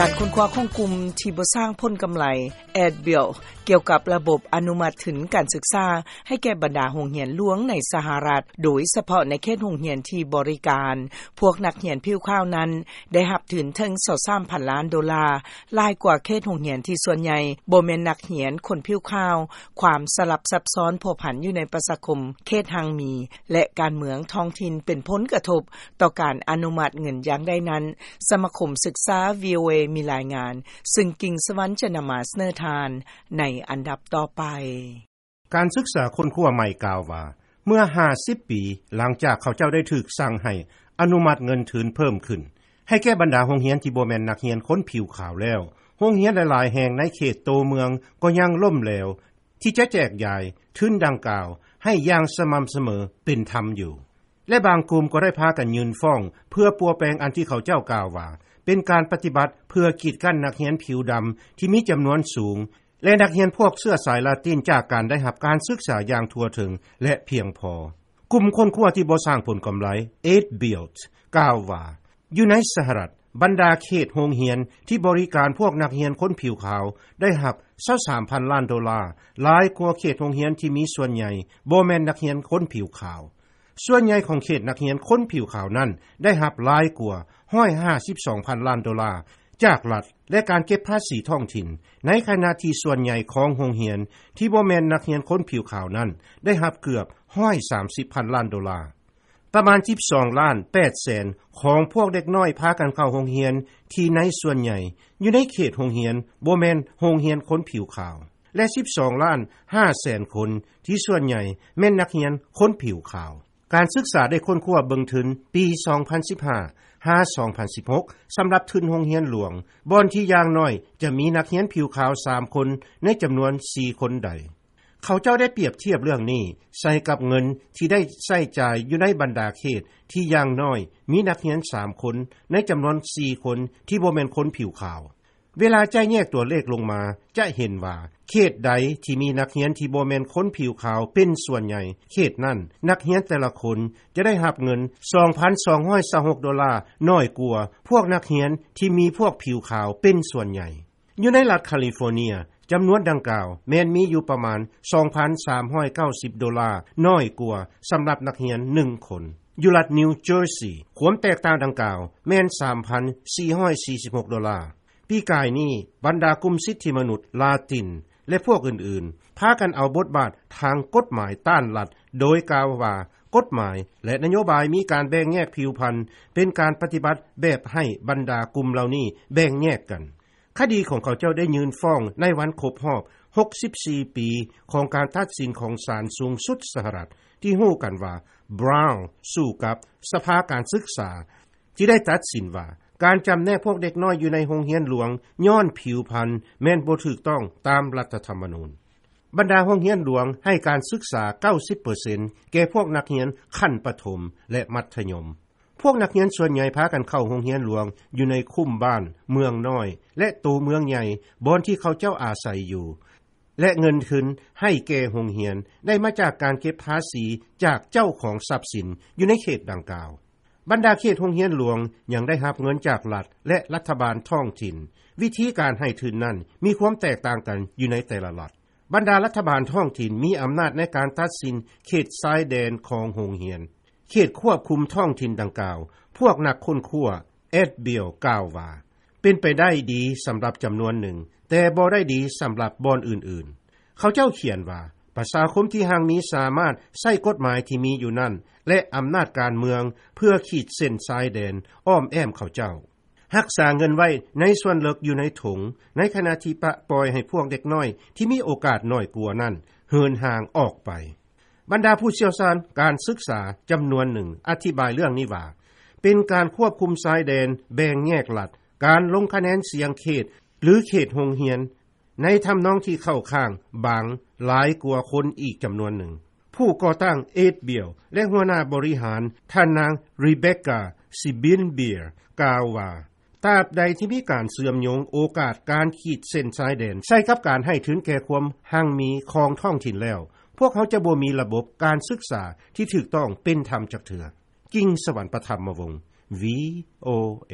ການຄົ້ນຄວ້າຂອງກຸ່ມທີ່ບໍ່ສ້າງຜົນກຳໄລ ADBuild ກ່ຽວກັບລະບົບອະນຸມັດທຶນການສຶກສາໃຫ້ແກ່ບັນດາໂຮງຮຽນຫຼວງໃນສະຫະລັດ, ໂດຍສະເພາະໃນເຂດໂຮງຮຽນທີ່ບໍລິການພວກນັກຮຽນຜິວຂາວນັ້ນ ໄດ້ຮັບທຶນເຖິງຊາວສາມພັນລ້ານໂດລາ, ຫຼາຍກວ່າເຂດໂຮງຮຽນທີ່ສ່ວນໃຫຍ່ບໍ່ແມ່ນນັກຮຽນຄົນຜິວຂາວ, ຄວາມສະຫຼັບຊັບຊ້ອນພົວພັນຢູ່ໃນປະຊາຄົມເຂດຮັ່ງມີ ແລະ ການເມືອງທ້ອງຖິ່ນເປັນຜົນກະທົບຕໍ່ການອະນຸມັດເງິນຢ່າງໃດນັ້ນ, ສະມາຄົມສຶກສາ VOA ມີລາຍງານ, ຊຶ່ງກິ່ງສະຫວັນຈະນຳມາສະເໜີທ່ານໃນອັນດັບຕໍ່ໄປ. ການສຶກສາຄົ້ນຄວ້າໃໝ່ກ່າວວ່າ ເມື່ອຫ້າສິບປີຫຼັງຈາກເຂົາເຈົ້າໄດ້ຖືກສັ່ງໃຫ້ອະນຸມັດເງິນທຶນເພີ່ມຂຶ້ນ ໃຫ້ແກ່ບັນດາໂຮງຮຽນທີ່ບໍ່ແມ່ນນັກຮຽນຄົນຜິວຂາວແລ້ວ, ໂຮງຮຽນຫຼາຍໆແຫ່ງໃນເຂດໂຕເມືອງກໍຍັງລົ້ມແຫຼວ ທີ່ຈະແຈກຢາຍທຶນດັ່ງກ່າວໃຫ້ຢ່າງສະໝ່ຳສະເໝີເປັນທຳຢູ່ ແລະ ບາງກຸ່ມກໍໄດ້ພາກັນຍື່ນຟ້ອງເພື່ອປົວແປງອັນທີ່ເຂົາເຈົ້າກ່າວວ່າ ເປັນການປະຕິບັດເພື່ອກີດກັ້ນນັກຮຽນຜິວດຳທີ່ມີຈຳນວນສູງ ແລະ ນັກຮຽນພວກເຊື້ອສາຍລາຕິນຈາກການໄດ້ຮັບການສຶກສາຢ່າງທົ່ວເຖິງ ແລະ ພຽງພໍ. ກຸ່ມຄົ້ນຄວ້າທີ່ບໍ່ສ້າງຜົນກຳໄລ ADBuild ກ່າວວ່າ ຢູ່ໃນສະຫະລັດ, ບັນດາເຂດໂຮງຮຽນທີ່ບໍລິການພວກນັກຮຽນຄົນຜິວຂາວໄດ້ຮັບຊາວສາມພັນລ້ານໂດລາ, ຫຼາຍກວ່າເຂດໂຮງຮຽນທີ່ມີສ່ວນໃຫຍ່ບໍ່ແມ່ນນັກຮຽນຄົນຜິວຂາວ. ສ່ວນໃຫຍ່ຂອງເຂດນັກຮຽນຄົນຜິວຂາວນັ້ນໄດ້ຮັບຫຼາຍກວ່າຮ້ອຍຫ້າສິບສອງພັນລ້ານໂດລາຈາກລັດ ແລະ ການເກັບພາສີທ້ອງຖິ່ນ, ໃນຂະນະທີ່ສ່ວນໃຫຍ່ຂອງໂຮງຮຽນທີ່ບໍ່ແມ່ນນັກຮຽນຄົນຜິວຂາວນັ້ນໄດ້ຮັບເກືອບຮ້ອຍສາມສິບພັນລ້ານໂດລາ. ປະມານສິບສອງລ້ານແປດແສນຂອງພວກເດັກນ້ອຍພາກັນເຂົ້າໂຮງຮຽນທີ່ໃນສ່ວນໃຫຍ່ຢູ່ໃນເຂດໂຮງຮຽນບໍ່ແມ່ນໂຮງຮຽນຄົນຜິວຂາວ ແລະ ສິບສອງລ້ານຫ້າແສນຄົນທີ່ສ່ວນໃຫຍ່ແມ່ນນັກຮຽນຄົນຜິວຂາວ. ການສຶກສາໄດ້ຄົ້ນຄວ້າເບິ່ງທຶນປີສອງພັນສິບຫ້າຫາສອງພັນສິບຫົກ ສຳລັບທຶນໂຮງຮຽນຫຼວງ ບ່ອນທີ່ຢ່າງໜ້ອຍຈະມີນັກຮຽນຜິວຂາວສາມຄົນໃນຈຳນວນສີ່ຄົນໃດ. ເຂົາເຈົ້າໄດ້ປຽບທຽບເລື່ອງນີ້ໃສ່ກັບເງິນທີ່ໄດ້ໃຊ້ຈ່າຍຢູ່ໃນບັນດາເຂດທີ່ຢ່າງໜ້ອຍມີນັກຮຽນສາມຄົນໃນຈຳນວນສີ່ຄົນທີ່ບໍ່ແມ່ນຄົນຜິວຂາວ. ເວລາຈະແຍກຕົວເລກລົງມາ ຈະເຫັນວ່າເຂດໃດທີ່ມີນັກຮຽນທີ່ບໍ່ແມ່ນຄົນຜິວຂາວເປັນສ່ວນໃຫຍ່, ເຂດນັ້ນນັກຮຽນແຕ່ລະຄົນຈະໄດ້ຮັບເງິນສອງພັນສອງຮ້ອຍຊາວຫົກໂດລາ ໜ້ອຍກວ່າພວກນັກຮຽນທີ່ມີພວກຜິວຂາວເປັນສ່ວນໃຫຍ່. ຢູ່ໃນລັດຄາລີຟໍເນຍ, ຈຳນວນດັ່ງກ່າວແມ່ນມີຢູ່ປະມານສອງພັນສາມຮ້ອຍເກົ້າສິບໂດລາ ໜ້ອຍກວ່າສຳລັບນັກຮຽນໜຶ່ງຄົນ. ຢູ່ລັດນິວເຈີຊີ, ຄວາມແຕກຕ່າງດັ່ງກ່າວແມ່ນສາມພັນສີ່ຮ້ອຍສີ່ສິບຫົກໂດລາ. ປີກາຍນີ້, ບັນດາກຸ່ມສິດທິມະນຸດລາຕິນ ແລະ ພວກອື່ນໆ ພາກັນເອົາບົດບາດທາງກົດໝາຍຕ້ານລັດ, ໂດຍກ່າວວ່າກົດໝາຍ ແລະ ນະໂຍບາຍມີການແບ່ງແຍກຜິວພັນ, ເປັນການປະຕິບັດແບບໃຫ້ບັນດາກຸ່ມເຫຼົ່ານີ້ແບ່ງແຍກກັນ. ຄະດີຂອງເຂົາເຈົ້າໄດ້ຍື່ນຟ້ອງໃນວັນຄົບຮອບຫົກສິບສີ່ປີຂອງການຕັດສິນຂອງສານສູງສຸດສະຫະລັດ ທີ່ຮູ້ກັນວ່າ Brown ສູ້ກັບສະພາການສຶກສາ ທີ່ໄດ້ຕັດສິນວ່າ ການຈຳແນກພວກເດັກນ້ອຍຢູ່ໃນໂຮງຮຽນຫຼວງຍ້ອນຜິວພັນແມ່ນບໍ່ຖືກຕ້ອງຕາມລັດຖະທຳມະນູນ. ບັນດາໂຮງຮຽນຫຼວງໃຫ້ການສຶກສາເກົ້າສິບເປີເຊັນແກ່ພວກນັກຮຽນຂັ້ນປະຖົມ ແລະ ມັດທະຍົມ. ພວກນັກຮຽນສ່ວນໃຫຍ່ພາກັນເຂົ້າໂຮງຮຽນຫຼວງຢູ່ໃນຄຸ້ມບ້ານ, ເມືອງນ້ອຍ ແລະ ໂຕເມືອງໃຫຍ່ ບ່ອນທີ່ເຂົາເຈົ້າອາໄສຢູ່ ແລະ ເງິນທຶນໃຫ້ແກ່ໂຮງຮຽນໄດ້ມາຈາກການເກັບພາສີຈາກເຈົ້າຂອງຊັບສິນຢູ່ໃນເຂດດັ່ງກ່າວ. ບັນດາເຂດໂຮງຮຽນຫຼວງຍັງໄດ້ຮັບເງິນຈາກລັດ ແລະ ລັດຖະບານທ້ອງຖິ່ນ. ວິທີການໃຫ້ທຶນນັ້ນມີຄວາມແຕກຕ່າງກັນຢູ່ໃນແຕ່ລະລັດ. ບັນດາລັດຖະບານທ້ອງຖິ່ນມີອຳນາດໃນການຕັດສິນເຂດຊາຍແດນຂອງໂຮງຮຽນ. ເຂດຄວບຄຸມທ້ອງຖິ່ນດັ່ງກ່າວ, ພວກນັກຄົ້ນຄວ້າ ADBuild ກ່າວວ່າ ເປັນໄປໄດ້ດີສຳລັບຈຳນວນໜຶ່ງ, ແຕ່ບໍ່ໄດ້ດີສຳລັບບ່ອນອື່ນໆ. ເຂົາເຈົ້າຂຽນວ່າ ປະຊາຄົມທີ່ຮັ່ງມີສາມາດໃຊ້ກົດໝາຍທີ່ມີຢູ່ນັ້ນ ແລະ ອຳນາດການເມືອງເພື່ອຂີດເສັ້ນຊາຍແດນອ້ອມແອ້ມເຂົາເຈົ້າ. ຮັກສາເງິນໄວ້ໃນສ່ວນເລິກຢູ່ໃນຖົງ, ໃນຂະນະທີ່ປະປ່ອຍໃຫ້ພວກເດັກນ້ອຍທີ່ມີໂອກາດໜ້ອຍກວ່ານັ້ນເຫີນຫ່າງອອກໄປ. ບັນດາຜູ້ຊ່ຽວຊານການສຶກສາຈຳນວນໜຶ່ງອະທິບາຍເລື່ອງນີ້ວ່າ ເປັນການຄວບຄຸມຊາຍແດນແບ່ງແຍກລັດ, ການລົງຄະແນນສຽງເຂດ ຫຼື ເຂດໂຮງຮຽນ ໃນທຳນອງທີ່ເຂົ້າຂ້າງບາງຫຼາຍກວ່າຄົນອີກຈຳນວນໜຶ່ງ. ຜູ້ກໍ່ຕັ້ງ ADBuild ແລະ ຫົວໜ້າບໍລິຫານ ທ່ານນາງ Rebecca Sibinbir ກ່າວວ່າ ຕາບໃດທີ່ມີການເຊື່ອມໂຍງໂອກາດການຂີດເສັ້ນຊາຍແດນໃສ່ກັບການໃຫ້ທຶນແກ່ຄວາມຮັ່ງມີຂອງທ້ອງຖິ່ນແລ້ວ, ພວກເຮົາຈະບໍ່ມີລະບົບການສຶກສາທີ່ຖືກຕ້ອງເປັນທຳຈັກເທື່ອ. ກິ່ງສະຫວັນ ປະທຳມະວົງ VOA.